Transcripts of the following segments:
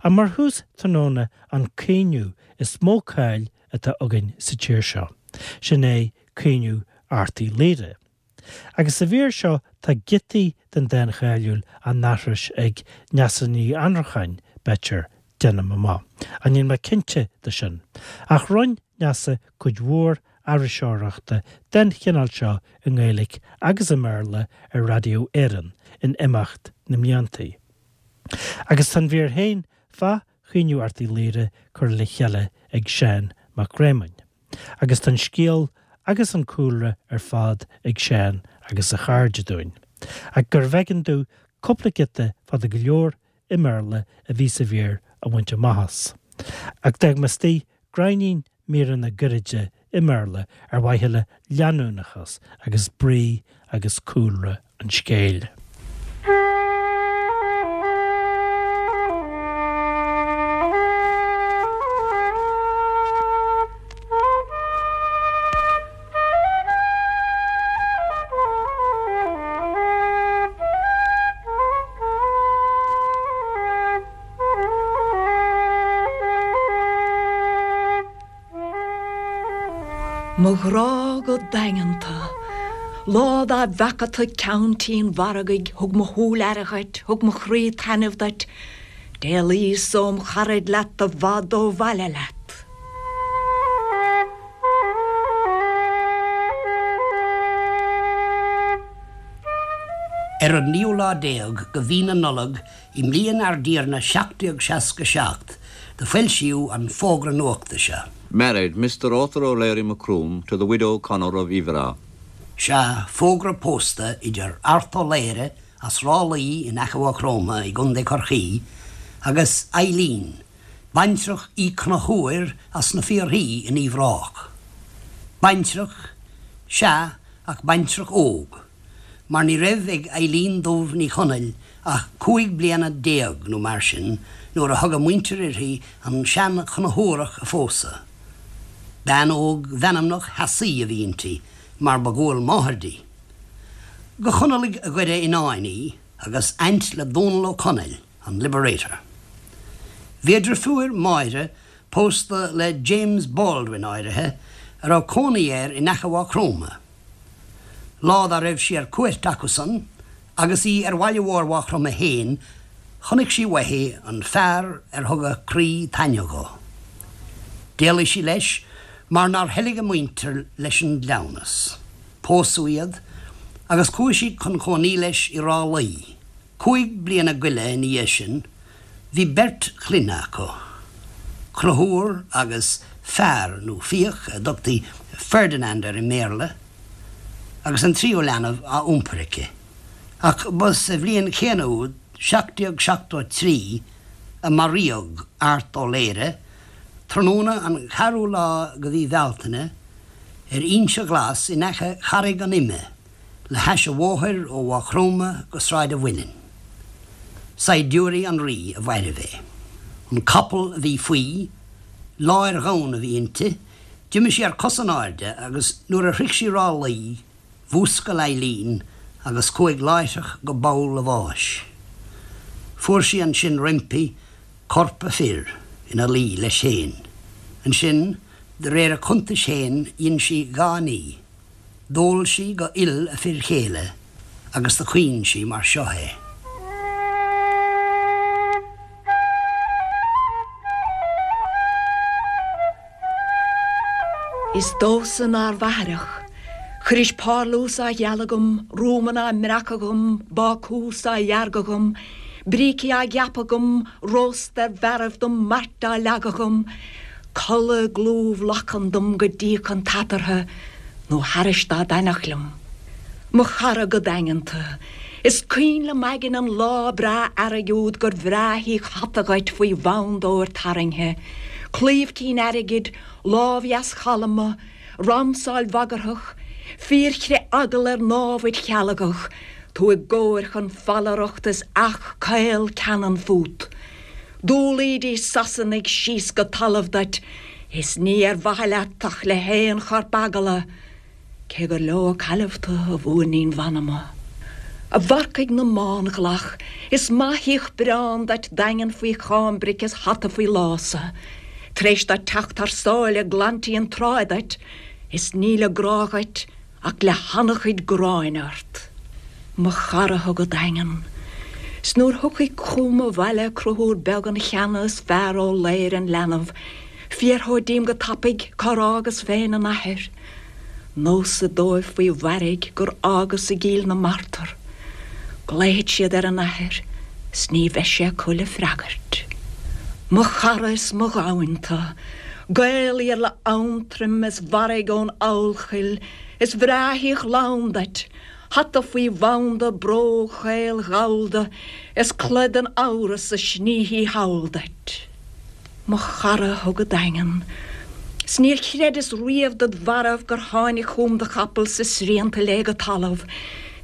Ach mar thús tráthnóna an caoineadh is mó cáil atá againn sa tír seo, sin é Caoineadh Airt Uí Laoghaire. Agus sa mhír seo tá giotaí den dán cháiliúil á n-aithris ag Neasa Ní Annracháin, b'fhéidir, déanaim amach, ach níl mé cinnte de sin. Ach rinne Neasa cuid mhór aithriseoireachta den chineál seo i nGaeilge agus i mBéarla ar Raidió Éireann in imeacht na mblianta. Agus tá an mhír féin fá Chaoineadh Airt Uí Laoghaire curtha le chéile ag Seán Mac Réamoinn. Agus tá an scéal agus an cúlra ar fad ag Seán agus a chairde dúinn. Ach gurbh éigean domh cúpla giota fada go leor i mBéarla a bhí sa mhír a bhaint amach as. Ach d'fhág mé istigh gráinnín míreanna gairide i mBéarla ar mhaithe le leanúnachas agus brí agus cúlra an scéil. Mo ghrá go daingeanta. Lá dá bhfeaca tu ceann tí an mhargaidh thug mo shúil aire dhuit, thug mo chroí taitneamh duit, d'éalaíos óm charaid leat i bhfad ó bhaile leat. Ar an naoú lá déag de mhí na Nollag i mbliain ár dTiarna 1767 do foilsíodh an fógra nuachta seo. Married, Mr. Arthur O'Leary Macroom to the widow Connor of Iveragh. Sea, fógra pósta idir Art Ó Laoghaire as Ráth Luí in aice Mhaigh Chromtha i gContae Chorcaí agus Eileen, baintreach Uí Chonchúir as na Fiarthaí in Uíbh Ráthach. Baintreach, sea, ach baintreach óg, mar ní raibh ag Eileen Dubh Ní Chonaill ach 15 bliana nó mar sin nuair a thug a muintir uirthi an sean-Chonchúrach a phósadh. Bean óg mheanmnach theasaí a bhí inti, mar ba dhual máthar di. Go Chonallaigh Dhoire Fhionáin í, agus aint le Dónal Ó Conaill, an Liberator. Bhí a drifiúir Máire pósta le James Baldwin áirithe a raibh cónaí air in aice Mhaigh Chromtha. Lá dá raibh sí ar cuairt acusan agus í ar bhaile mhór Mhaigh Chromtha fhéin chonaic sí uaithi an fear ar thug a croí taitneamh dho. D'éalaigh sí leis mar nár thoiligh a muintir leis an gcleamhnas. Pósadh iad agus chuaigh sí chun cónaí leis i Ráth Luí. Cúig bliana goile ina dhiaidh sin bhí beirt chlainne acu, Conchúr agus Fear nó Fiach, a dtugtaí Ferdinand air i mBéarla, agus an tríú leanbh á iompar aici. Ach ba sa bhliain chéanna úd, 1773, a maraíodh Art Ó Laoghaire, tráthnóna an cheathrú lá de mhí Bhealtaine, ar Inse Ghlas in aice Charraig an Ime, le hais an bhóthair ó Mhaigh Chromtha go Sráid a' Mhuilinn. Saighdiúirí an Rí a mhairbh é. An capall a bhí faoi, láir dhonn a bhí inti, d'imigh sí ar cos in airde agus nuair a shroich sí Ráth Luí, mhúscail Eileen agus chuaigh láithreach go poll a bháis. Fuair sí ansin roimpi corp a fir ina luí leis féin. Ansin, de réir a cuntais féin, dhein sí dhá ní. D'ól sí go fhuil a fir chéile agus do chaoin sí mar seo é. Is domhsa nár mh'aithreach. Chuiris párlús á ghealadh agam, rúmanna á mbreacadh agam, bácús á dheargadh agam, brící á gceapadh agam, rósta ar bhearaibh dom, mairt á leagadh agam, Codladh i gclúmh lachan dom go dtíocfadh an t-eatarthu nó thairis dá dtaitneodh liom. Mo chara go daingeanta, is cuimhin liom aigne an lá breá earraigh úd gur bhreá thí hata dhuit faoi bhand óir tarraingthe, claíomh cinn airgid, lámh dheas chalma, ramsáil bhagarthach, fíorchrith eagal ar námhaid chealgach, tú i gcóir chun fallaireachta is each caol ceannann fút. D'umhlaídís Sasanaigh síos go talamh duit is ní ar mhaithe leat ach le haon chorp eagla, cé gur leo a cailleadh tu, a mhúirnín mh'anama. A mharcaigh na mbánghlach, is maith shíoth breán duit daingean faoi cháimbric is hata faoi lása. Tar éis duit teacht thar sáile glantí an tráigh duit, is níl a grá dhuit ach le han-chuid gráin ort. Mo chara thú go daingean. 'S nuair thiocfaidh chugam abhaile Conchúr beag an cheana is fear Ó Laoghaire an leanbh, fiafród díom go tapaidh cár fhágas féin an athair. Neosad dóibh faoi mhairg gur fhágas i gCill na Martra. Glaofaidh siad ar an athair 's ní bheidh sé acu le freagairt. Mo chara is mo ghamhain tu, Gael Iarla Aontroim is mharaigh ón Eochaill, is bhreá shíoth lann duit, hata faoi bhanda, bróg chaol ghallda, is culaith den amhras a snífidh thall duit. Mo chara thú go daingean. 'S níor chreideas riamh dod mharbh gur tháinig chugam do chapall 's is srianta léi go talamh,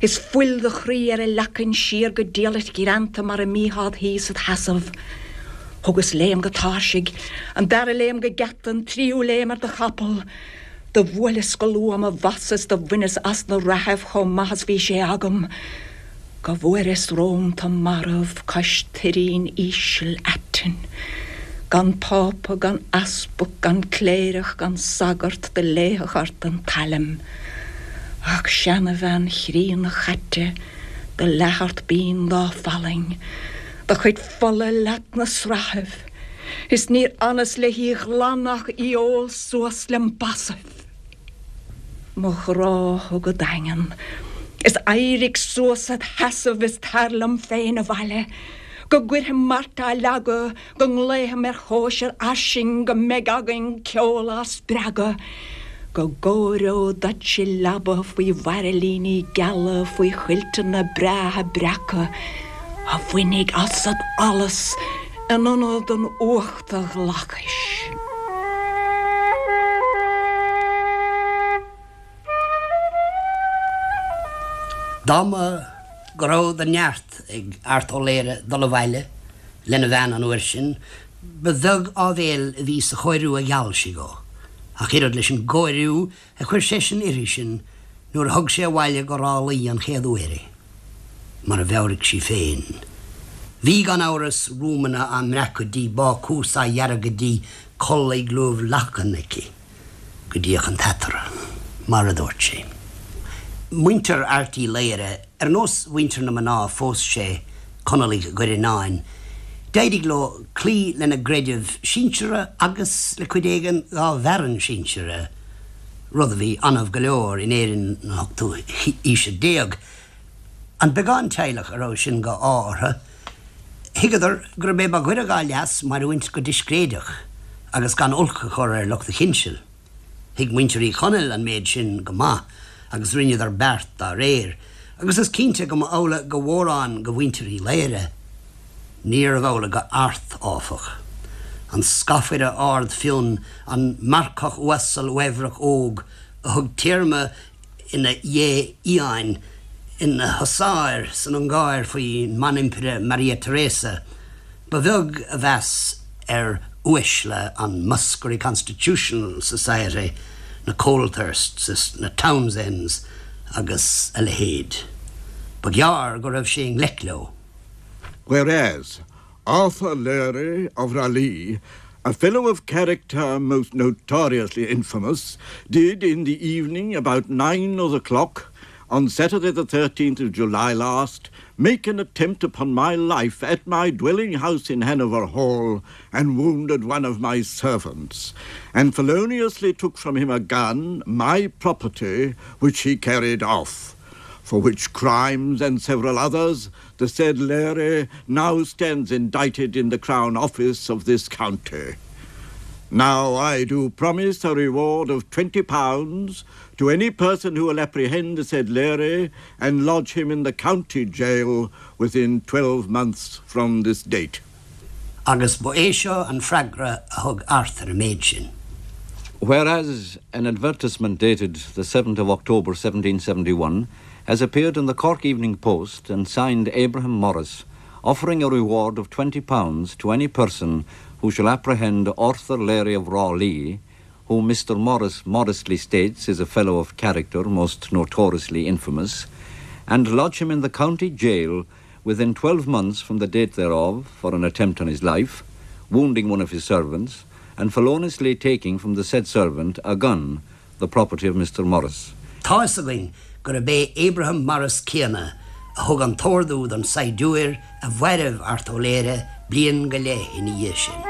is fuil do chroí ar a leacain siar go diallait ghreanta mar a mbítheá 'd shuí 's id sheasamh. Thugas léim go tairsigh, an dara léim go geata, an tríú léim ar do chapall. Do bhuaileas go luath mo bhasa 's do bhaineas as na reathaibh chomh maith is bhí sé agam. Go bhfuaireas romham tu marbh cois tuirín ísil aitinn, gan Pápa, gan easpag, gan cléireach, gan sagart do léifeadh ort an tsailm, ach seanabhean chríonna chaite do leath ort binn dá fallaing, do chuid fola leat 'na srathaibh, is níor fhanas le hí ghlanadh ach í ól suas lem basaibh. Mo ghrá thú go daingean. Is éirigh suas id sheasamh is tar liom féin abhaile. Go gcuirfeam mart á leagadh, go nglaofam ar chóisir fhairsing, go mbeidh againn ceol ár spreagadh, go gcóireod duit i leaba faoi bhairillíní geala, faoi chuilteanna breátha breaca, a bhainfidh asat allas in ionad an uachta ghlacais. Dá mba go raibh de neart ag Art Ó Laoghaire dul abhaile lena bhean an uair sin, ba bheag áibhéil a bhí sa chóiriú a gheall sí dhó, ach oiread leis an gcóiriú a chuir seisean uirthi sin nuair a thug sé abhaile go Ráth Luí an chéad uair í. Mar a mheabhraigh sí féin. Bhí, gan amhras, rúmanna á mbreacadh di, bácús á dheargadh di, culaith luibh lachan aici go dtíodh an t-eatarthu, mar a dúirt sí. Muintir Airt Uí Laoghaire, ar nós mhuintir na mná a phós sé, Conallaigh Dhoire Fhionáin, d'éirigh leo cloí lena gcreideamh sinseartha agus le cuid éigin dá bhfearann sinseartha, rud a bhí annamh go leor in Éirinn na hochtú haoise déag. An beagán teaghlach a raibh sin de ádh orthu, thuigeadar gurb é ba ghaire dhá leas mairiúint go discréideach agus gan olc a chur ar lucht a chinsil. Thuig muintir Uí Chonaill an méid sin go maith agus rinneadar beart dá réir, agus is cinnte go mba amhlaidh go mhórán de mhuintir Uí Laoghaire. Níorbh amhlaidh go Art, áfach. An scafaire ard fionn, an marcach uasal uaibhreach óg a thug téarma ina ghé fhiáin, ina husáir san Ungáir faoin mBanimpire Maria Theresa, ba bheag a mheas ar uaisle an Muskerry Constitutional Society, na Colthursts is na Townsends agus a leithéid. Ba ghearr go raibh sé i ngleic leo. Whereas Arthur Leary of Ralee, a fellow of character most notoriously infamous, did in the evening about 9 o' the clock on Saturday the 13th of July last make an attempt upon my life at my dwelling house in Hanover Hall and wounded one of my servants, and feloniously took from him a gun, my property, which he carried off, for which crimes and several others the said Leary now stands indicted in the Crown Office of this county. Now I do promise a reward of £20 to any person who will apprehend the said Leary and lodge him in the county jail within 12 months from this date. Agus ba é seo an freagra a thug Art ar an méid sin. Whereas an advertisement dated the 7th of October 1771 has appeared in the Cork Evening Post and signed Abraham Morris, offering a reward of £20 to any person who shall apprehend Arthur Leary of Rawley, whom Mr. Morris modestly states is a fellow of character most notoriously infamous, and lodge him in the county jail within 12 months from the date thereof for an attempt on his life, wounding one of his servants, and feloniously taking from the said servant a gun, the property of Mr. Morris. Tá fhios againn gurb é Abraham Morris céanna a thug an t-ordú don saighdiúir a mhairbh Art Ó Laoghaire bliain go leith ina dhiaidh sin.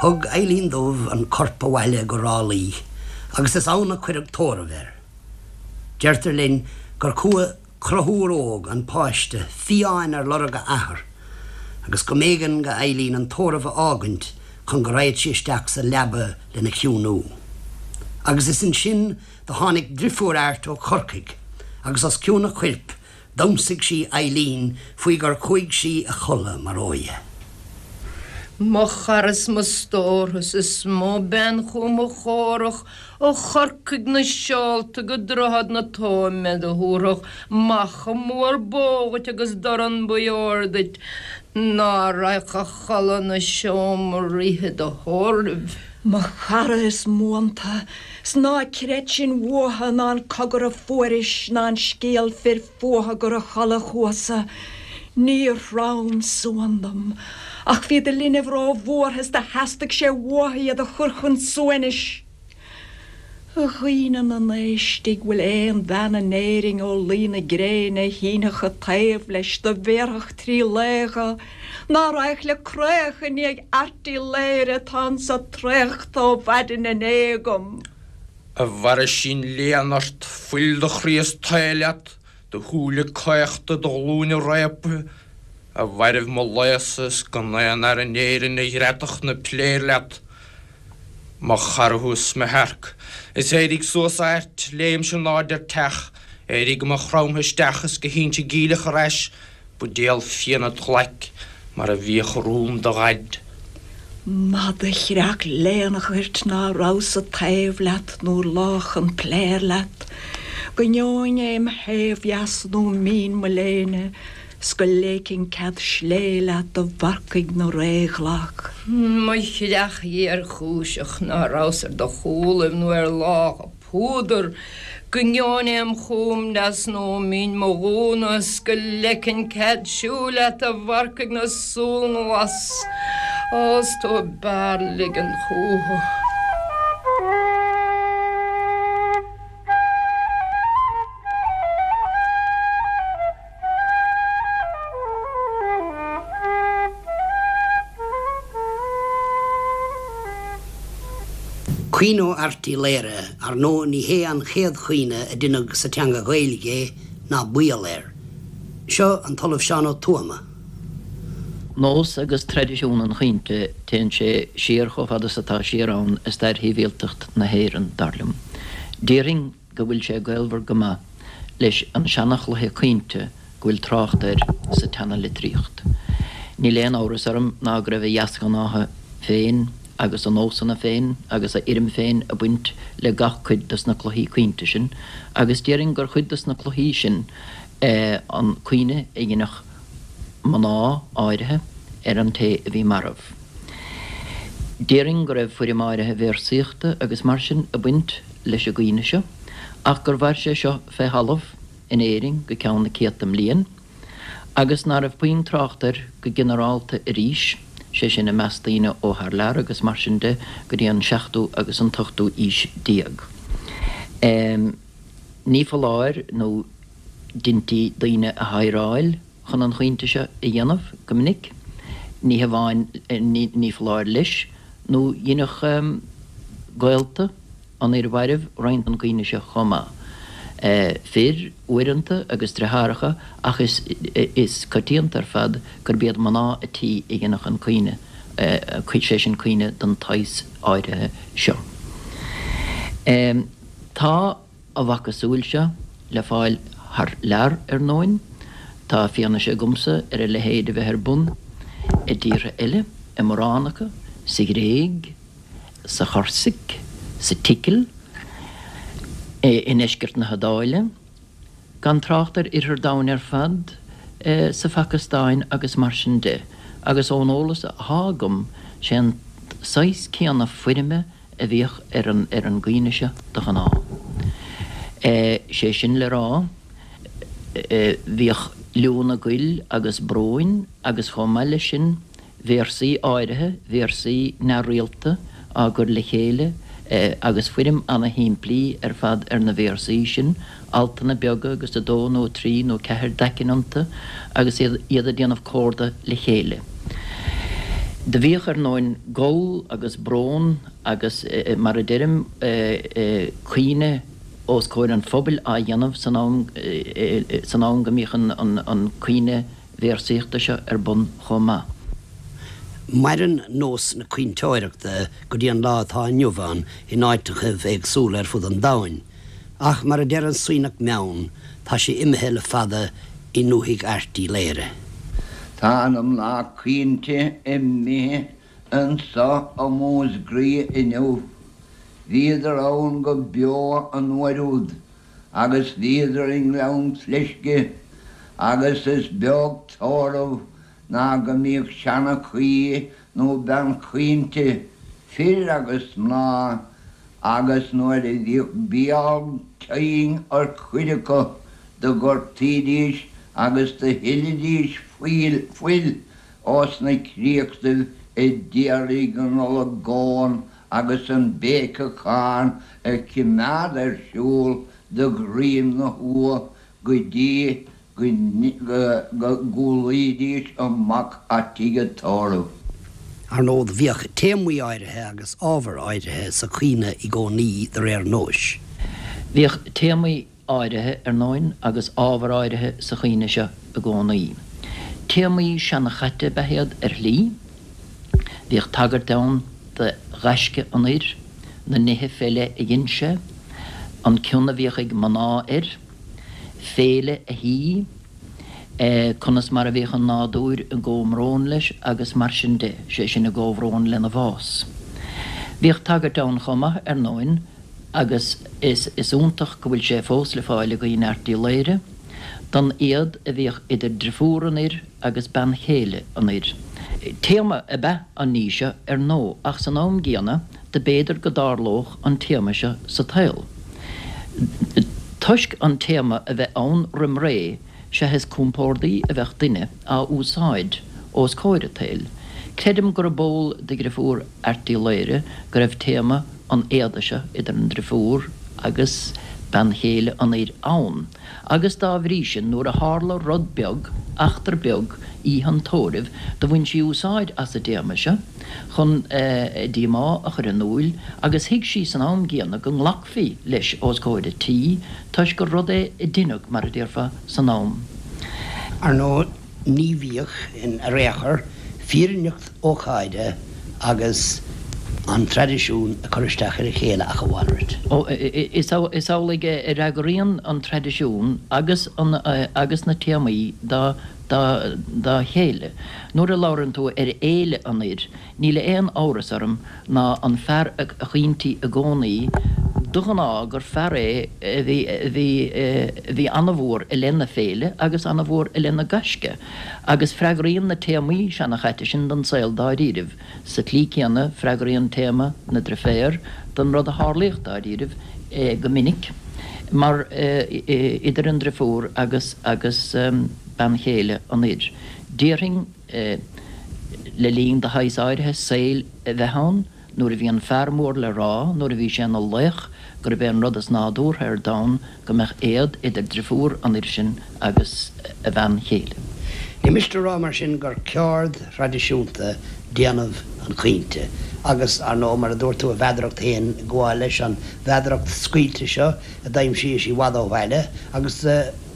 Thug Eileen Dubh an corp abhaile go Ráth Luí agus is ann a cuireadh tórramh air. Deirtear linn gur chuaigh Conchúr óg, an páiste, fiáin ar lorg a athar, agus go mb'éigean go Eileen an tórramh a fhágaint chun go raghad sí isteach sa leaba lena chiúnú. Agus is ansin do tháinig drifiúr Airt ó Chorcaigh, agus os cionn a choirp d'ionsaigh sí Eileen faoi gur chuaigh sí a chodladh mar óidhe. Mo chara is mo stórthas is mó bean chugam a chomhrac Ó Chorcaigh na seolta go Droichead na Tóime do thabharfadh macha mór bó dhuit agus dorn buí óir duit ná raghadh a chodladh 'na seomra oíche do thórraimh. Mo chara is m'uanta, 's ná creid sin uatha ná an cogar a fuairis ná an scéal fir fuatha gur a chodladh chuasa, níor throm suan dom, ach bhí do linbh ró-bhuartha is do theastaigh sé uatha iad a chur chun suaimhnis. A dhaoine na n-éistigh bhfuil aon bhean in Éirinn ó luí na gréine a shínfeadh a taobh leis do bhéarfadh trí lao dho, ná raghadh le creach i ndiaidh Airt Uí Laoghaire atá anso traochta ó mhaidin inné agam. A bhairisín léan ort, fuil do chroí is tae leat, do shúile caochta, do ghlúine réabtha, a mhairbh mo lao-sa is gan aon fhear in Éirinn a ghreadfadh na piléir leat. Mo chara thú is mo shearc. Is éirigh suas a Airt, léim in airde ar teach, éirigh go Maigh Chromtha isteach is go hInse Geimhleach ar ais, buidéal fíona id ghlaic mar a bhíodh i rúm do dhaid. Mada chreach léanach ort ná rabhas-sa taobh leat nuair lách an pléar leat, go ngeobhainn é im thaobh dheas nó mín mo léine 's go léicfinn cead slé leat a mharcaigh na ré ghlac. Mo chreach ghéarchúiseach ná rabhas ar do chúlaibh nó ar lácha púdar, go ngeobhainn é im chúm deas nó mín mo ghúna 's go leicfinn cead siúil leat a mharcaigh na súl nglas, Ó 's tú ab fhearr ligean chúthu. Caoineadh Airt Uí Laoghaire, ar ndóigh ní hé an chéad chaoineadh a deineadh sa teanga Ghaeilge é, ná baol air. Seo an tOllamh Seán Ó Tuama. Nós agus traidisiún an chaointe, téann sé siar chomh fada is atá siar ann i stair shibhialtacht na hÉireann, dar liom. Déarfainn go bhfuil sé gaolmhar go maith leis an seana-chluiche caointe go bhfuil trácht air sa tseana-litríocht. Níl aon amhras orm ná go raibh a dheasghnátha féin agus a nósanna féin agus a fhoirm féin ag baint le gach cuid dos na cluichí caointe sin, agus déarfainn gur chuid dos na cluichí sin é an caoineadh a dheineadh mná áirithe ar an té a bhí marbh. Déarfainn go raibh foirm áirithe véarsaíochta agus mar sin ag baint leis an gcaoineadh seo, ach gur mhair sé seo fé thalamh in Éirinn go ceann na céadta mbliain, agus ná raibh puinn trácht air go ginearálta arís, sé sin i measc daoine ó thar lear agus mar sin de, go dtí an seachtú agus an t-ochtú aois déag. Ní foláir nó deintí daoine a hidhreáil chun an chaointe seo a dhéanamh go minic, ní hamháin, ní foláir leis, nó dheineadh gaolta an fhir mhairbh roinnt den gcaoineadh seo chomh maith. Fir, uaireanta, agus driotháracha, ach is coitianta ar fad gurb iad mná a' tí a dheineadh an caoineadh, sé sin caoineadh den tsaghas áirithe seo. Tá. A mhacasamhail seo le fáil thar lear, ar ndóin. Tá fianaise agamsa ar a leithéid a bheith ar bun i dtíortha eile, i mórán acu, sa Ghréig, sa Chorsaic, sa tSicil, i ndeisceart na hIodáile, gan trácht ar Oirthear domhain ar fad, sa Phacastáin agus mar sin de. Agus ón eolas athá agam, sé an saghas céanna foirme a bhíodh ar an ar an gcaoineadh seo de ghnáth. Sé sin le rá, bhíodh liúnna goil agus bróin agus chomh maith leis sin véarsaí áirithe, véarsaí neamhrialta á gcur le chéile agus foirm ana-shimplí ar fad ar na véarsaí sin, altanna beaga agus 2 nó 3 nó 4 d'aicinn iontu agus iad ag déanamh comhardadh le chéile. Do bhíodh, ar ndóin, gol agus brón agus, mar a deirim, caoineadh os comhair an phobail á dhéanamh san am san am go mbíodh an caoineadh véarsaíochta seo ar bun chomh maith. Maireann nós na caointeoireachta go dtí an lá atá inniu ann in áiteachaibh éagsúla ar fud an domhain. Ach mar a deir an Suibhneach Meann, tá sé imithe le fada i ndúthaigh Airt Uí Laoghaire. Tá na mná caointe imithe anso i Músgraighe inniu. Bhíodar ann go beo an uair úd agus bhíodar i nGleann Fleisce agus is beag tórramh ná go mbíodh seanchaí nó bean chaointe, fir agus mná, agus nuair a bhíodh béal tinn ar chuid acu do ghortaídís agus do shilidís fuil ós na créachtaibh a d'iarraidh an olagón agus an béiceachán a chimeád ar siúl de dhroim na huagha go dtí go gcúlaídís amach a' tigh a' tórraimh. Ar ndóigh, bhíodh téamaí áirithe agus ábhair áirithe sa chaoineadh i gcónaí de réir nóis. Bhíodh téamaí áirithe, ar ndóin, agus ábhair áirithe sa chaoineadh seo i gcónaí. Téamaí seanchaite ab ea iad ar shlí. Bhíodh tagairt ann do ghaisce an fhir, na nithe fé leith a dhein sé, an cion a bhíodh ag mná air, féile a thí, conas mar a bhíodh an nádúr i gcomhbhrón leis agus mar sin de, sé sin i gcomhbhrón lena bhás. Bhíodh tagairt ann chomh maith, ar ndóin, agus is iontach go bhfuil sé fós le fáil i gCaoineadh Airt Uí Laoghaire, don éad a bhíodh idir driofúr an fhir agus bean chéile an fhir. Téama ab ea an ní seo, ar ndóigh, ach san am gcéanna, do b'fhéidir go dtarlódh an téama seo sa tsaol. Toisc an téama a bheith ann roim ré, sea is compórdaí a bheadh duine á úsáid os comhair an tsaoil. Creidim gurb eol do dhriofúr Airt Uí Laoghaire go raibh téama an éada seo idir an driofúr agus bean chéile an fhir ann, agus dá bhrí sin nuair a tharla rud beag, eachtra beag, oíche an tórraimh, do bhain sí úsáid as an dtéama seo chun a díomá a chur in iúil agus thuig sí san am gcéanna go nglacfaí leis os comhair an tí toisc gur rud é a deineadh, mar a déarfá, san am. Ar ndóigh, ní bhíodh in ar aon chor fírinneacht ócáide agus an traidisiún ag cur isteach ar a chéile ach a mhalrait. Ó, is amhlaidh a fhreagraíonn an traidisiún agus an agus na téamaí dá dá dá chéile. Nuair a labhrann tú ar fhéile an fhir, Níl aon amhras orm ná an fear a chaointí i gcónaí, de ghnáth, gur fear é a bhí, a bhí, a bhí ana-mhór i leith na féile agus ana-mhór i leith na gaisce. Agus freagraíonn na téamaí seanachaite sin don saol dáiríribh. Sa tslí céanna, freagraíonn téama na driféar don rud a tharlaíodh dáiríribh go minic, mar idir an driofúr agus, agus bean chéile an fhir. Déarfainn. Le linn de shaghas áirithe saoil a bheith ann, nuair a bhí an fear mór le rá, nuair a bhí sé ina laoch, gurb é an rud is nádúrtha ar domhan go mbeadh éad idir driofúr an fhir sin agus a bhean chéile. Ní miste a rá mar sin gur ceárd thraidisiúnta déanamh an chaointe agus, ar ndóigh, mar a dúirt tú, a mheadaracht féin ag gabháil leis, an mheadaracht scaoilte seo a d'aimsíos i bhfad ó bhaile agus,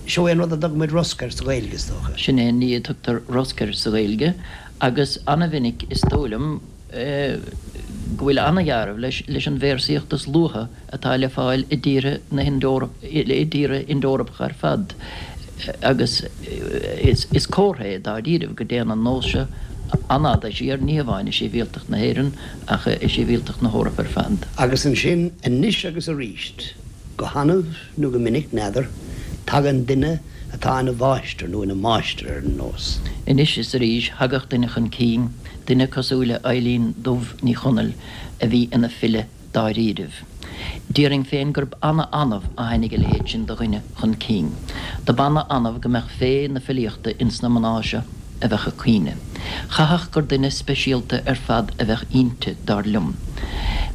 Seo é an rud a dtugann muid rosc air sa Ghaeilge, is dócha. Sin é an ní a tugtar rosc air sa Ghaeilge agus ana-mhinic is dóigh liom go bhfuil ana-dhealramh leis leis an véarsaíocht is luaithe atá le fáil i dtíortha na i dtíortha Ind-Eorpacha ar fad agus is comhartha é dáiríribh go dtéann an nós seo an-fhada siar, ní hamháin i sibhialtacht na hÉireann ach i sibhialtacht na hEorpa ar fad. Agus ansin, anois agus aríst, go hannamh, nó go minic, n'fheadar. Tagann duine atá ina mháistir nó ina máistir ar an nós. Anois is arís thagadh duine chun cinn, duine cosúil le Eilín Dubh Ní Chonaill a bhí ina file dáiríribh. Déarfainn féin gurb ana-annamh a tháinig a leithéid sin de dhuine chun cinn. Dob ana-annamh go mbeadh féith na filíochta ins na mná seo a bheadh ag caoineadh. Chaithfeadh gur duine speisialta ar fad a bheadh inti, dar liom.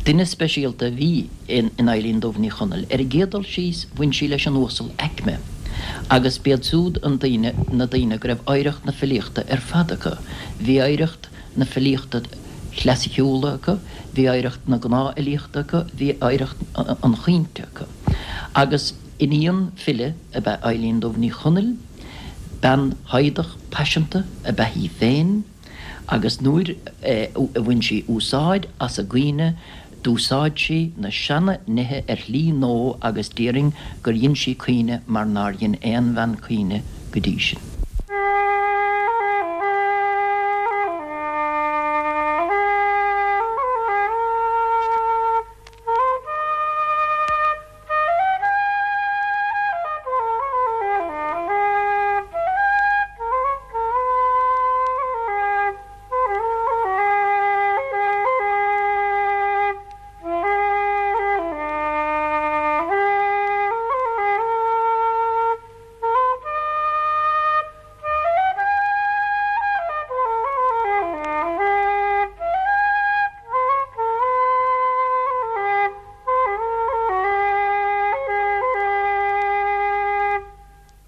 Duine speisialta a bhí in Eilín Dubh Ní Chonaill. Ar an gcéad dul síos, bhain sí leis an uasal aicme, agus b'iad siúd an daoine, na daoine go raibh oidhreacht na filíochta ar fad acu. Bhí oidhreacht na filíochta chlasaiceúla acu, bhí oidhreacht na gnáthfhilíochta acu, bhí oidhreacht an chaointe acu. Agus iníon file ab ea Eilín Dubh Ní Chonaill, bean fhoighdeach paiseanta ab ea í féin, agus nuair a bhain sí úsáid as an gcaoineadh, d'úsáid sí na seana-nithe ar shlí nua agus déarfainn gur dhein sí caoineadh mar nár dhein aon bhean caoineadh go dtí sin.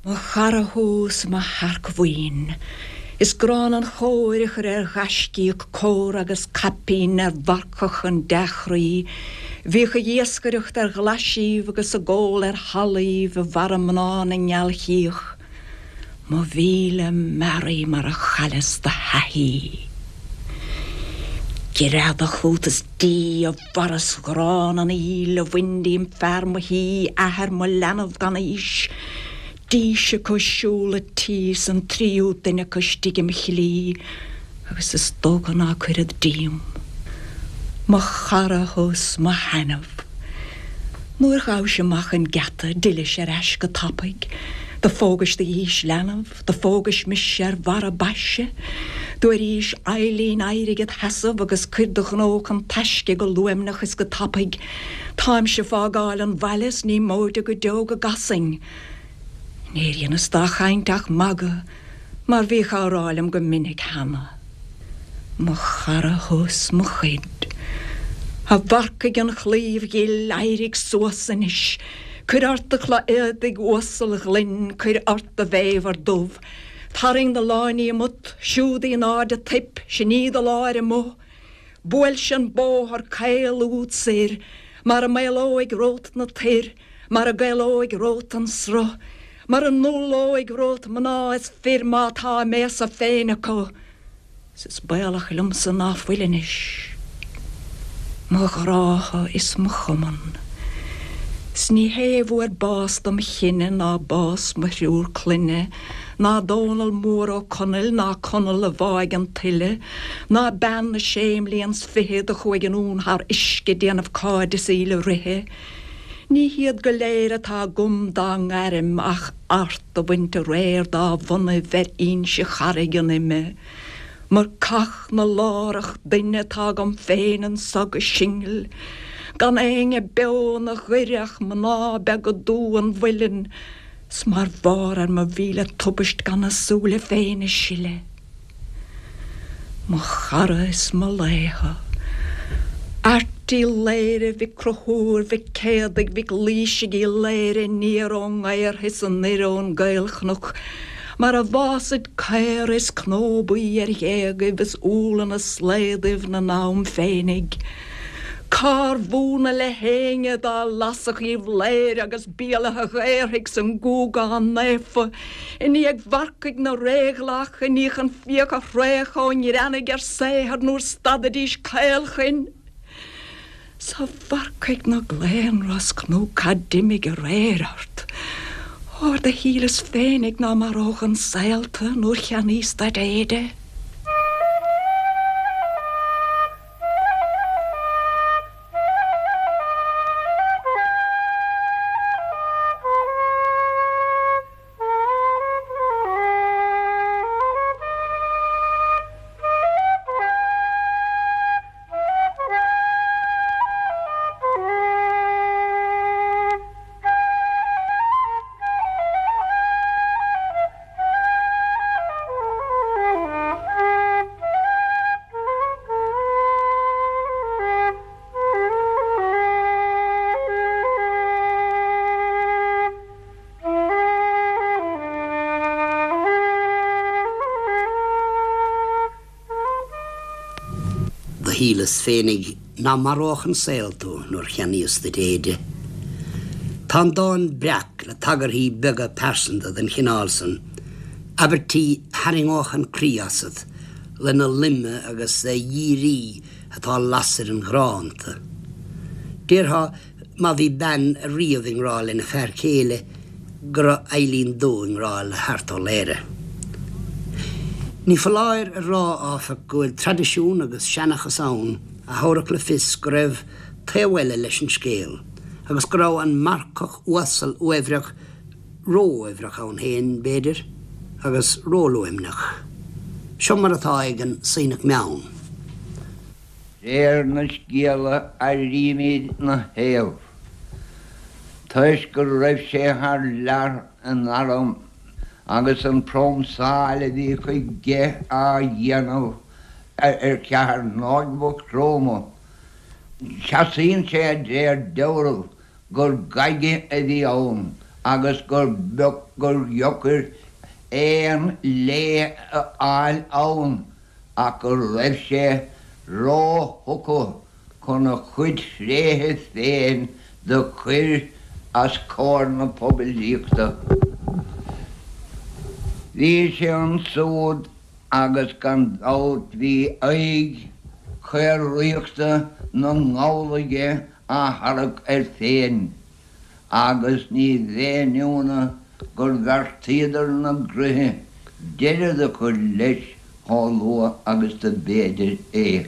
Mo chara thú 's mo shearcbhuíon. Is gránna an chóir a chur ar ghaiscíoch córa agus caipín ar mharcach an dea-chroí. Bhíodh ag iascaireacht ar ghlaisíbh agus ag ól ar shalaíbh i bhfarradh mná na ngealchríoch. Mo mhíle mearaí mar a chailleas do thaithí. Greadadh chút is dí, a mharas ghránna an fhuíll a bhain díom fear mo thí, athair mo leanbh gan aois. Dís acu siúl a tí 's an tríú duine acu istigh im shlí agus is dócha ná cuirfead díom. Mo chara thú 's mo thaitneamh. Nuair ghabhais amach an geata d'fhillis ar ais go tapaidh. Do phógais do dhís leanbh, do phógais mise ar bharra baise. Do airís Eilín éirigh id sheasamh agus cuir do ghnó chun taisce go luaimneach is go tapaidh. Táimse fágáil an bhaile 's ní móide go deo go gcasfainn. Níor dheineas dá chaint ach magadh mar bhíodh á rá liom go minic cheana. Mo chara thú 's mo chuid. A mharcaigh an chlaímh ghil, éirigh suas anois. Cuir ort do chulaith éadaigh uasail ghlinn, cuir ort do bhéabhar dubh. Tarraing do láinní umat, siúd í in airde toip, sin í do láir amuigh. Buailse an bóthar caol úd soir, mar a maolóidh romhat na toir, mar a gcaolóidh romhat an sruth, mar a ndúlóidh romhat mná is fir má tá a mbéasa féin acu. 'S is baolach liomsa ná fuil anois mo ghrádha is mo chumann. 'S ní hé a fuair bás dom chine ná bás mo thriúr clainne, ná Dónall Mór Ó Conaill ná Conall a bháigh an tuile, ná bean na sé mblian 's fiche do chuaigh anonn thar uisce déanamh cairdeas í le ríthe. Ní hiad go léir atá agam dá ngairm ach Art do bhaint aréir dá bhonnaibh ar Inse Charraig an Ime. Marcach na lárach duine atá agam féin anso go singil, gan éinne beo 'na ghoire ach mná beaga dubha an mhuilinn, 's mar bharr ar mo mhíle tubaist gan a súile féin a sileadh. Mo chara is mo laoch. Airt Uí Laoghaire Mhic Conchúir Mhic Céadaigh Mhic Laoisigh Uí Laoghaire aniar ón nGaortha is anoir ón gCaolchnoc mar a bhfásaid caora is cnó buí ar ghéagaibh is úlla 'na slaodaibh 'na n-am féinig. Cár bhfóna le héinne dá lasfadh Uíbh Laoghaire agus Béal Átha Ghaorthaidh 's an Gúgán Naofa I ndiaidh mharcaigh na réghlach, i ndiaidh an fiach a thraochadh ó ngreannaigh ar saothar nuair stadaidís caolchoin. 'S a mharcaigh na gclaonrosc nó cad d'imigh aréir ort? Óir do shíleas féinig ná maródh an saol tu nuair cheannaíos duit éide. Shíleas féinig ná maródh an saol tú nuair cheannaíos duit éide. Tá an dán breac le tagarthaí beaga pearsanta den chineál san, abairtí tharraingeodh an croí asat lena loime agus a dhírí atá lasair an ghrá iontu. Déarfá má bhí bean riamh i ngrá lena fear céile go raibh Eilín Dubh i ngrá le hArt Ó Laoghaire. Ní foláir a rá, áfach, go bhfuil traidisiún agus seanchas ann a thabharfadh le fios go raibh taobh eile leis an scéal agus go raibh an marcach uasal uaibhreach ró-uaibhreach ann féin, b'fhéidir, agus róluaimneach. Seo mar atá ag an Sionnach Meann. Réir na scéala airímid 'na thaobh, toisc go raibh sé thar lear in arm agus an phrómsáil a bhí chuige á dhéanamh ar Cheatharnóg Mhaigh Chromtha, seasaíonn sé d'réir dealraimh gur gaige a bhí ann agus gur beag gur dheocair aon lé a fháil ann ach go raibh sé ró-thugtha chun a chuid thréithe féin do chuir as comhair na poiblíochta. Bhí sé ansúd agus gan dabht bhí aghaidh chaoraíochta na nGall aige á tharrac air féin agus ní bheinn ionadh gur bheartaíodar 'na gcroíthe deireadh do chur leis chomh luath agus do b'fhéidir é.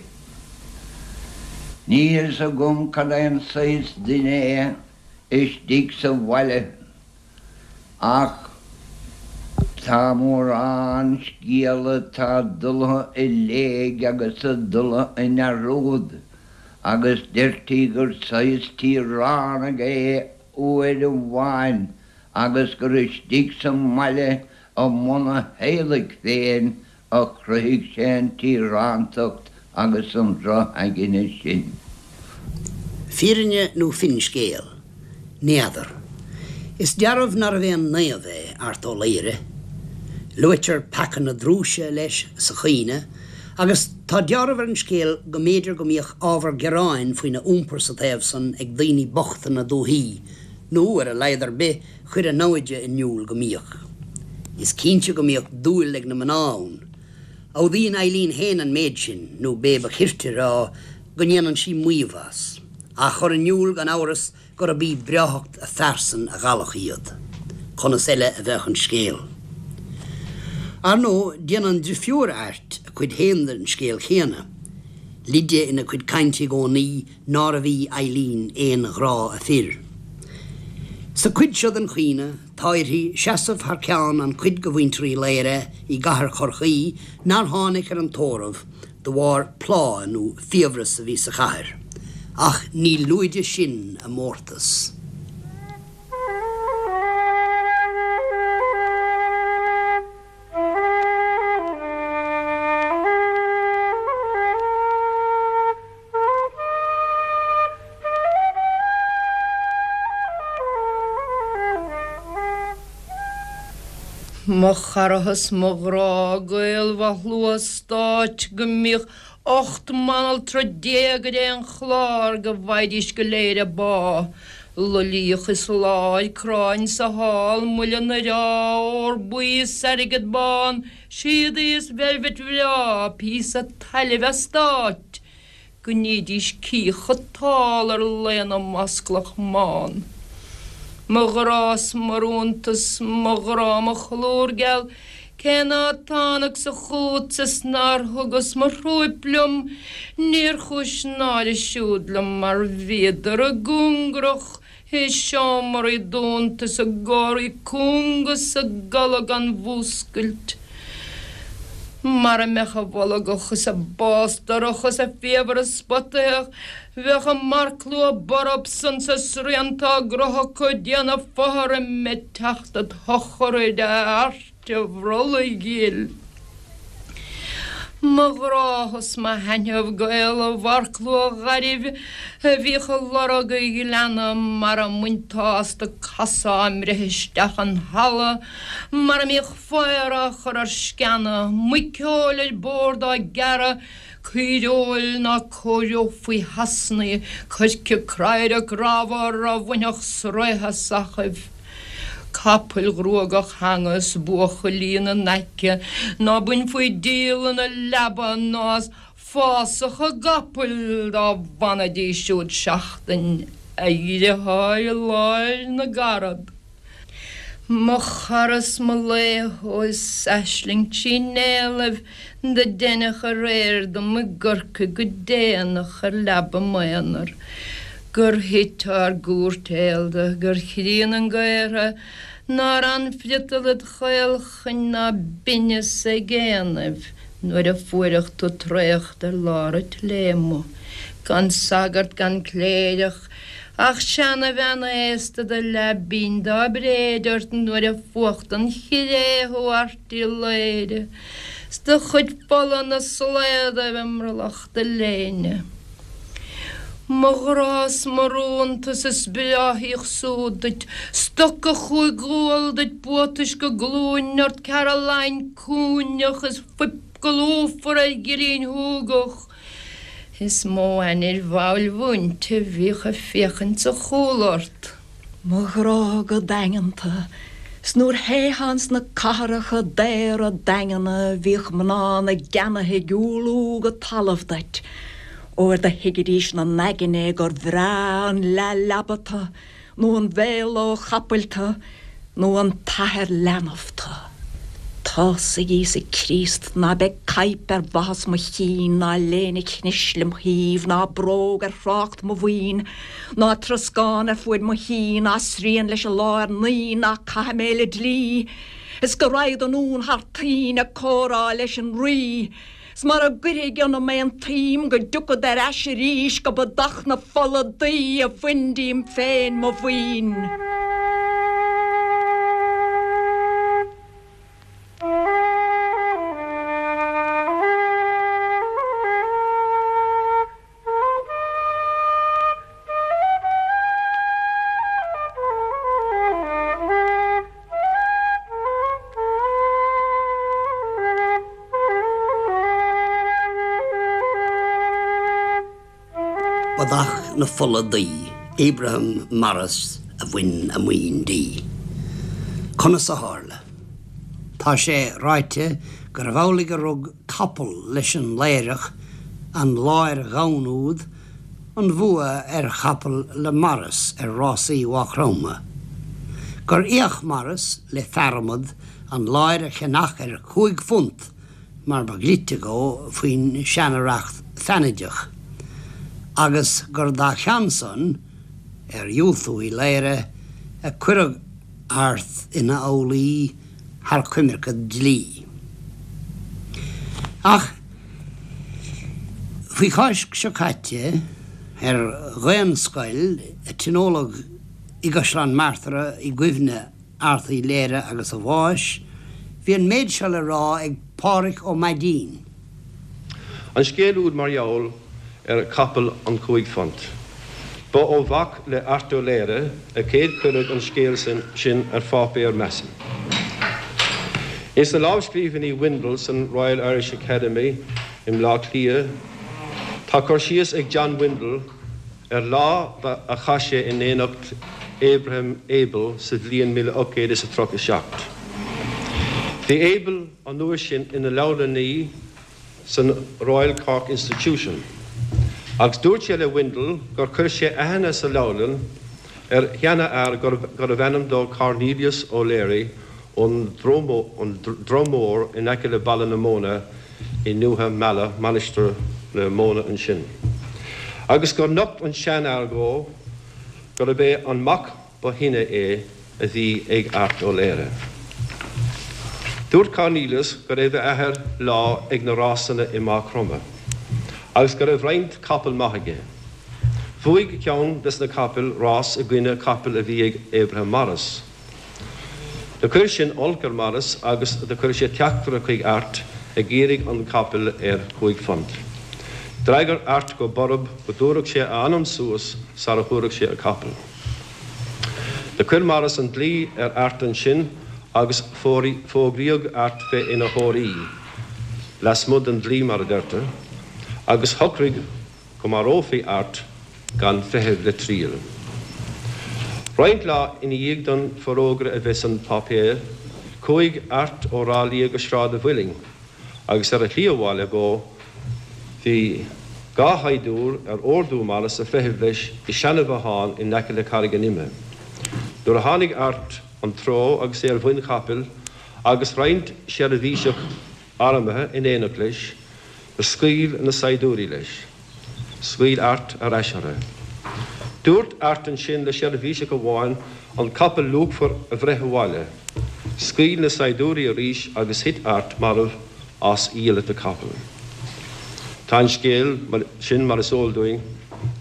Níl 'fhios agam cad é an saghas duine é istigh sa bhaile ach tá mórán scéala atá dultha i léig agus a dultha i ndearúd agus deirtí gur saghas tíoránaigh é uair amháin agus gur istigh sa mbaile i mbun a theaghlaigh féin a chruthaigh sé an tíorántacht agus an droch-aigne sin. Fírinne nó finscéal? N'fheadar. Is dearbh nárbh aon naomh é Art Ó Laoghaire. Luaitear peaca na drúise leis sa chaoineadh agus tá deáramh ar an scéal go mb'fhéidir go mbíodh ábhar gearáin faoina iompar sa taobh san ag daoine bochta na dúthaí, nó ar a laghad ar bith chuir a namhaide in iúl go mbíodh. Is cinnte go mbíodh dúil ag na mná ann. Admhaíonn Eileen féin an méid sin, nó b'é ba chirte a rá go ndéanann sí maíomh as, á chur in iúl gan amhras gurb í breáthacht a phearsan a mheallfadh iad. Conas eile a bheadh an scéal? Ar ndóigh, déanann drifiúr Airt a cuid féin den scéal chéanna. Leide ina cuid cainte i gcónaí nárbh í Eileen aon ghrá a fir. Sa chuid seo den chaoineadh, tá uirthi seasamh thar ceann an chuid de mhuintir Uí Laoghaire i gcathair Chorcaí nár tháinig ar an tórramh de bharr plá nó fiabhras a bhí sa chathair. Ach ní lúide sin a mórtas. Mo chara 's mo ghrá gaol mhaith shlua stáit go mbíodh 18 mbanaltra ar aon chlár go bhfaighidís go léir a bpá. Luilíoch is láir, cráin sa hall, muileann ar ádh, ór buí is airgead bán, Síodaí is veilbhit bhreá, píosa tailimh eastáit, go nídís cíocha tall ar laonna masclach mbán. Mo ghrá 's mo rúntas, mo ghrá, mo cholúr geal, cé ná tánagsa chútsa 's nár thugas mo thrúip liom, níor chúis náire siúd liom mar bhíodar i gcóngarach I seomraí dúnta is i gcomhraí cúnga 's i gcodladh gan mhúscailt. Mara mbeadh a bholgach is a bástarach is a fiabhras spotaitheach, bheadh a marcshlua borb san 's a srianta á gcroitheadh acu ag déanamh fothraim ag teacht id shochraid a Airt. a bhrollaigh ghil. Mo ghrá 's mo thaitneamh gaol an mharcshlua ghairbh a bhíodh ag lorg an ghleanna mara mbainteá astu casadh á mbreith isteach an halla, mara mbíodh faobhar á chur ar sceana, muiceoil ar bord á gearradh. Caoireoil ná cóireofaí thasnaí, coirce craire grámhar a bhainfeadh sraoth as eachaibh. Capaill ghruagach-theanga is buachaillí ina n-aice ná bainfí díol ina leaba ná as fásach a gcapaill dá bhfanfaidís siúd seachtain, a dhriotháir i lár na gcarad. Mo chara 's mo laoch ó is aisling trí néallaibh do deineadh aréir dom i gCorcaigh go déanach ar leaba m'aonair gur thit ár gcúirtéalda gur chríon an gaortha nár fhan friotal id chaolchoin ná binneas ag éanaibh nuair a fuaireadh tú traochta ar lár an tsléibhe gan sagart gan cléireach Ach seanabhean aosta do leath binn dá bréid ort nuair a fuacht an chré thú Airt Uí Laoghaire 's do chuid fola 'na slaodaibh i mbrollach do léine. Mo ghrá 's mo rúntas is breáthaíodh súd duit, stoca chúig ghual duit buatais go glúin ort Caroline cúinneach is fuip go lúfar ar ghillín shúgach. Is mó ainnir mhall mhúinte bhíodh ag féachaint sa chúl ort. Mo ghrá go daingeanta, 's nuair théitheá ins na cathracha daora daingeana bhíodh mná na gceannaithe ag umhlú go talamh duit, óir do thuigidís 'na n-aigne gur bhreá an leath-leaba tu nó an bhéalóg chapaill tu, nó an t-athair leanbh tu. Tá's ag Íosa Críost ná beidh caidhp ar bhathas mo chinn, ná léine chnis lem thaobh, ná bróg ar thrácht mo bhoinn, ná troscán ar fuaid mo thí, ná srian leis an lá ar naoi, ná caithfidh mé le dlí, is go raghad anonn thar toinn ag comhrá leis an Rí. 'S mara gcuirfidh ionam aon tsuim go dtiocfad ar ais arís go ba dath na fola daoi a bhain díom féin mo mhaoin. Ba dath na fola daoi Abraham Morris a bhain a maoin di. Conas a tharla? Tá sé ráite gurbh amhlaidh gur rug capall leis an Laoireach, an láir dhomhain úd, an bhua ar chapall le Morris ar rásaí Mhaigh Chromtha. Gur fhéach Morris le fearadhmad an láir a cheannach ar £5 mar ba dhlite dhó faoin seana-reacht feannaideach, agus gur dá cheann san, ar dhiúltú Uí Laoghaire, a cuireadh Art ina fhoghlaí thar coimirce dlí. Ach faoi Cháisc seo caite, ar Dhaonscoil a tionóladh i gCaisleán Martara i gcuimhne Airt Uí Laoghaire agus a bháis, bhí an méid seo le rá ag Pádhraic Ó Maidín. An scéal úd mar gheall ar chapall an £5. Ba ó mhac le Art Ó Laoghaire a chéad cuireadh an scéal sin ar pháipéar, measaim. Ins na lámhscríbhinní Windle san Royal Irish Academy i mBleá Cliath tá cur síos ag John Windle ar lá a chaith sé in éineacht Abraham Abel sa bhliain 1837. Bhí Abel an uair sin ina leabharlannaí san Royal Cork Institution, agus dúirt sé le Windle gur chuir sé aithne sa leabharlann ar sheanfhear gurbh ainm dó Cornelius O'Leary ón Drom Mór in aice le Baile na Móna i nDúiche Meala, Mainistir na Móna ansin, agus gur nocht an seanfhear dhó gurb é an mac ba shine é a bhí ag Art Ó Laoghaire. Dúirt Cornelius go raibh a athair lá ag na rásanna i Maigh Chromtha agus go raibh roinnt capall maith aige. Bhuaigh ceann des na capaill rás i gcoinne capaill a bhí ag Abraham Morris. Do chuir sin olc ar Morris agus do chuir sé teachtaire chuig Art ag iarraidh an capall ar £5. D'fhreagair Art go borb go dtabharfadh sé a anam suas sara thabharfadh sé a capall. Do chuir Morris an dlí ar Art ansin agus fógraíodh Art bheith ina thóraí, lasmuigh den dlí mar a deirtear. Agus shocraigh go marófaí Art gan feitheamh le triail. Roinnt lá ina dhiaidh don forógra a bheith san páipéar, chuaigh Art ó Ráth Liath go Sráid a' Mhuilinn agus ar a shlí abhaile dhó bhí dha shaighdiúir ar órdú Morris a' feitheamh leis i seana-bhothán in aice le Carraig an Ime. Nuair a tháinig Art an treo agus é ar mhuin chapaill agus roinnt seirbhíseach armtha in éineacht leis, do scaoil na saighdiúirí leis. Scaoil Art ar ais orthu. Dúirt Art ansin le seirbhíseach amháin an capall luachmhar a bhreith abhaile. Scaoil na saighdiúirí arís agus thit Art marbh as a diabhal capall. Tá an scéal sin, mar is eol dúinn,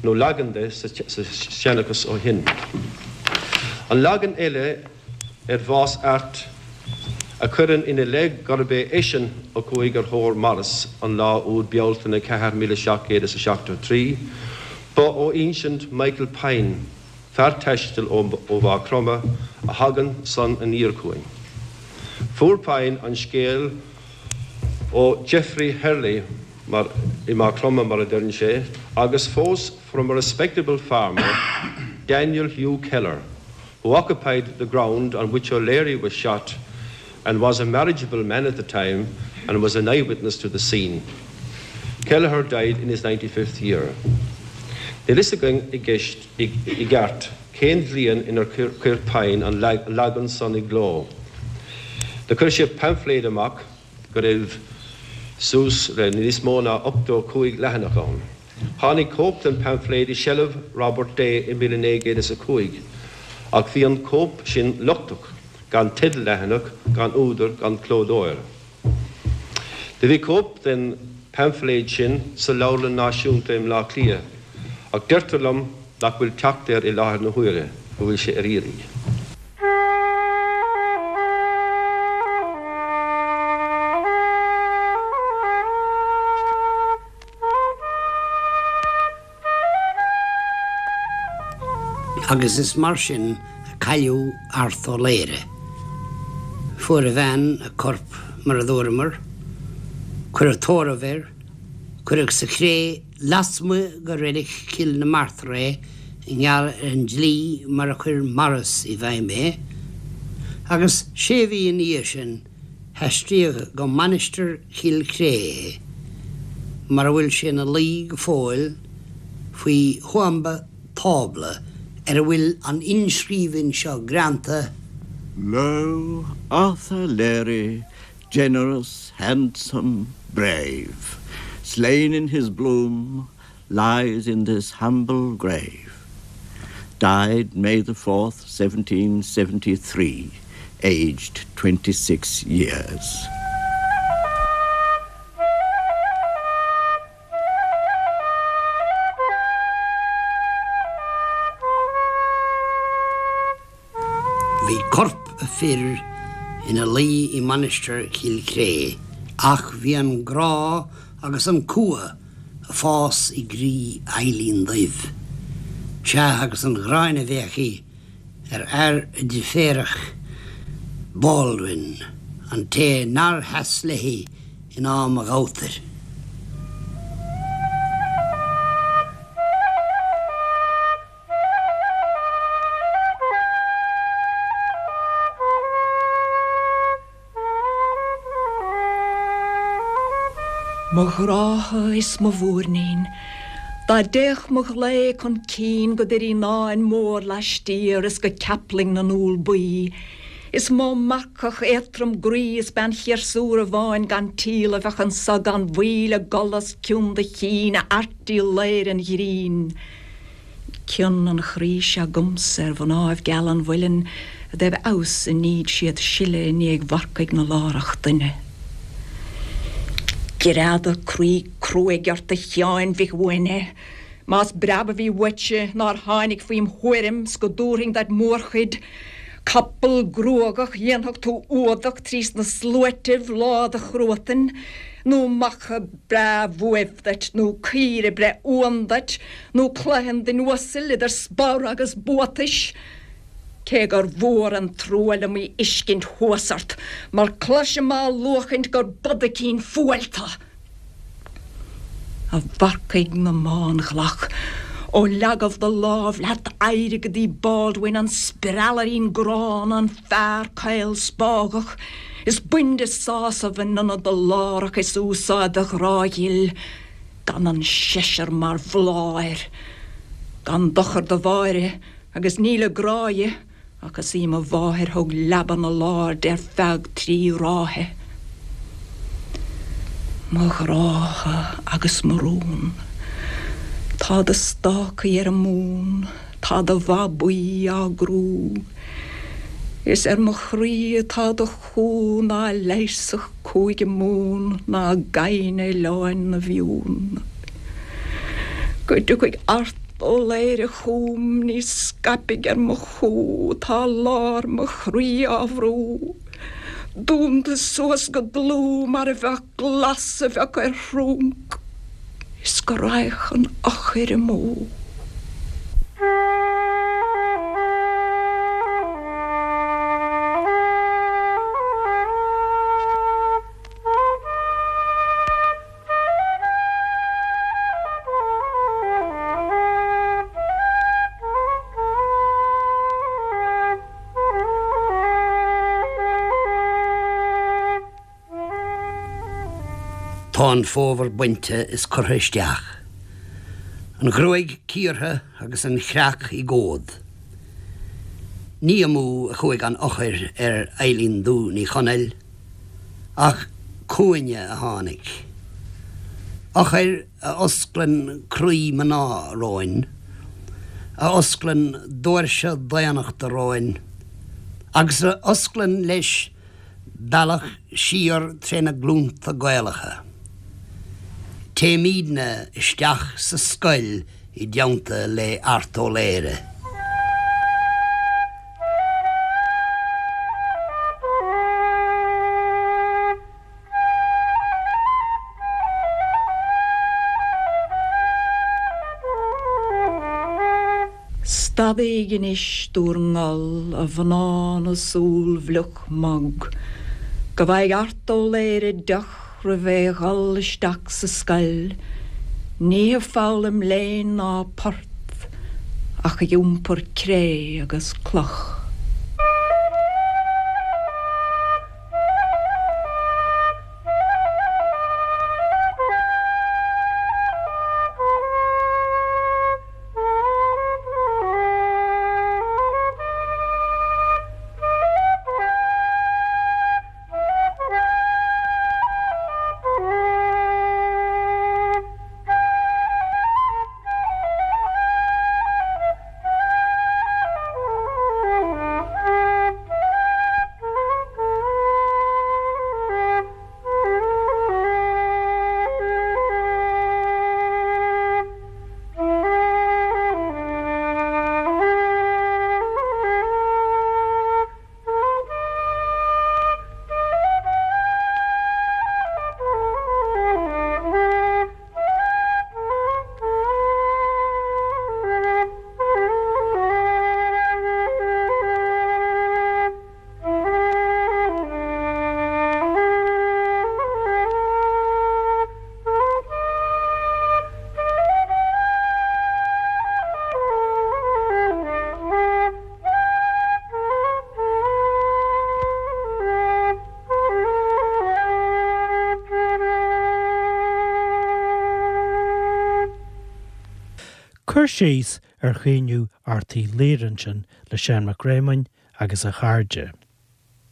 nó leagan de, sa seanchas ó shin. An leagan eile ar bhás Airt a chuireann ina leith gurb é eisean a chuaigh ar thóir Morris an lá úd Bealtaine 4, 1773, ba ó insint Michael Pyne, fear taistil ó Mhaigh Chromtha, a thagann san aniar chugainn. Fuair Pyne an scéal ó Geoffrey Herley mar i Maigh Chromtha, mar a deireann sé, agus fós from a respectable farmer, Daniel Hugh Keller, who occupied the ground on which O'Leary was shot and was a marriageable man at the time and was an eyewitness to the scene. Kelleher died in his 95th year. Níl fhios againn i gceist i gceart cén bhliain inar chuir Pyne an leagan san i gcló. Do chuir sé paimfléad amach go raibh suas le níos mó ná 85 leathanach ann. Tháinig cóip den paimfléad i seilbh Robert Day i 1905, ach bhí an cóip sin lochtach, gan teideal leathanach, gan údar, gan clódóir. Do bhí cóip den paimfléad sin sa Leabharlann Náisiúnta i mBleá Cliath, ach deirtear liom nach bhfuil teacht air i láthair na huaire, go bhfuil sé ar iarraidh. Agus is mar sin a cailleadh Art Ó Laoghaire. Fuair a bhean a corp, mar a dúramar. Cuireadh tórramh air. Cuireadh sa chré lasmuigh de reilig Chill na Martra é i ngeall ar an dlí mar a chuir Morris i bhfeidhm é. Agus sé mhí ina dhiaidh sin, haistríodh go Mainistir Chill Chré é, mar a bhfuil sé ina luí go fóill faoi thuamba tábla ar a bhfuil an inscríbhinn seo greanta, Lo, Arthur Leary, generous, handsome, brave, Slain in his bloom, lies in this humble grave. Died May the 4th, 1773, aged 26 years. Bhí corp a fir ina luí i Mainistir Chill Chré ach bhí an grá agus an cumha ag fás i gcroí Eilín Duibh. Sea, agus an ghráin a bhí aici ar fhear a driféarach Baldwin, an té nár sheas léi in am a ghabhtair. Mo ghrádha is mo mhúirnín, Dá dtéadh mo ghlao chun cinn go Doirín Áin mór laistiar is go Ceaplaing na n-úll buí, Is mó marcach éadtrom groí is bean chiarsúra bháin gan tíl a bheadh anso gan mhoill ag gol os cionn do chinn, a Airt Uí Laoghaire an ghrinn. Cion an chroí seo 'gamsa ar mhnáibh geala an mhuilinn i dtaobh fheabhas a níd siad sileadh i ndiaidh mharcaigh na lárach doinne. Greadadh croí cruaidh ort a Sheáin Mhic Uaithne, más breab a bhí uaitse nár tháinig faoim thuairim 's go dtabharfainn duit mórchuid Capall gruagach dhéanfadh tú fhuadach trís na sluaitibh lá do chruatain, nó macha breá bhuaibh duit, nó caoire breith uan duit, nó cloigheann duine uasail idir spor agus buatais. Cé gur mhór an trua liom í fhiscint thuas ort, mar cloisim á luachaint gur bodaicín fuail tu. A mharcaigh na mbánghlach, ó leagaibh do lámh leat éirigh go dtí Baldwin, an spreallairín gránna, an fear caol spágach, is bain de sásamh in ionad do lárach is úsáid do ghrá ghil gan an seisear mar bhláth air. Gan dochar do Mháire, agus níl i grá dhi, Ach is í mo mháthair thug leaba na lár di ar feadh trí ráithe. Mo ghrádha agus mo rún. Tá do stácaí ar an mún, tá do bhabaí á gcrú. Is ar mo chroí atá do chú ná leigheasfadh Cúige Mumhan ná gaibhne Oileáin na bhFiann. Go dtiocfaidh Art Ó Laoghaire chugam níos scaipfidh ar mo chú tá lár mo chroí á bhrú. Dúnta suas go dlúth mar a bheadh glas a bheadh ar thrúnc is go raghadh an eochair amú. Tá an fómhar bainte is curtha isteach, an ghruaig cíortha agus an chreach i gcomhad. Ní amú a chuaigh an eochair ar Eilín Dubh Ní Chonaill, ach chugainne a tháinig. Eochair a osclann croí mná romhainn, a osclann doirse daonnachta romhainn, agus a osclann leis bealach siar tré na glúnta Gaelacha. Téimídne isteach sa scoil i dteannta le Art Ó Laoghaire. Stadaíg anois d'úr ngol, a mhná na súl bhfliuch mbog, Go bhfaighidh Art Ó Laoghaire deoch roimh é dhul isteach sa scoil, Ní ag foghlaim léinn ná port, ach ag iompar cré agus cloch. Cur síos ar chaoineadh Art Uí Laoghaire ansin le Seán Mac Réamoinn agus a chairde.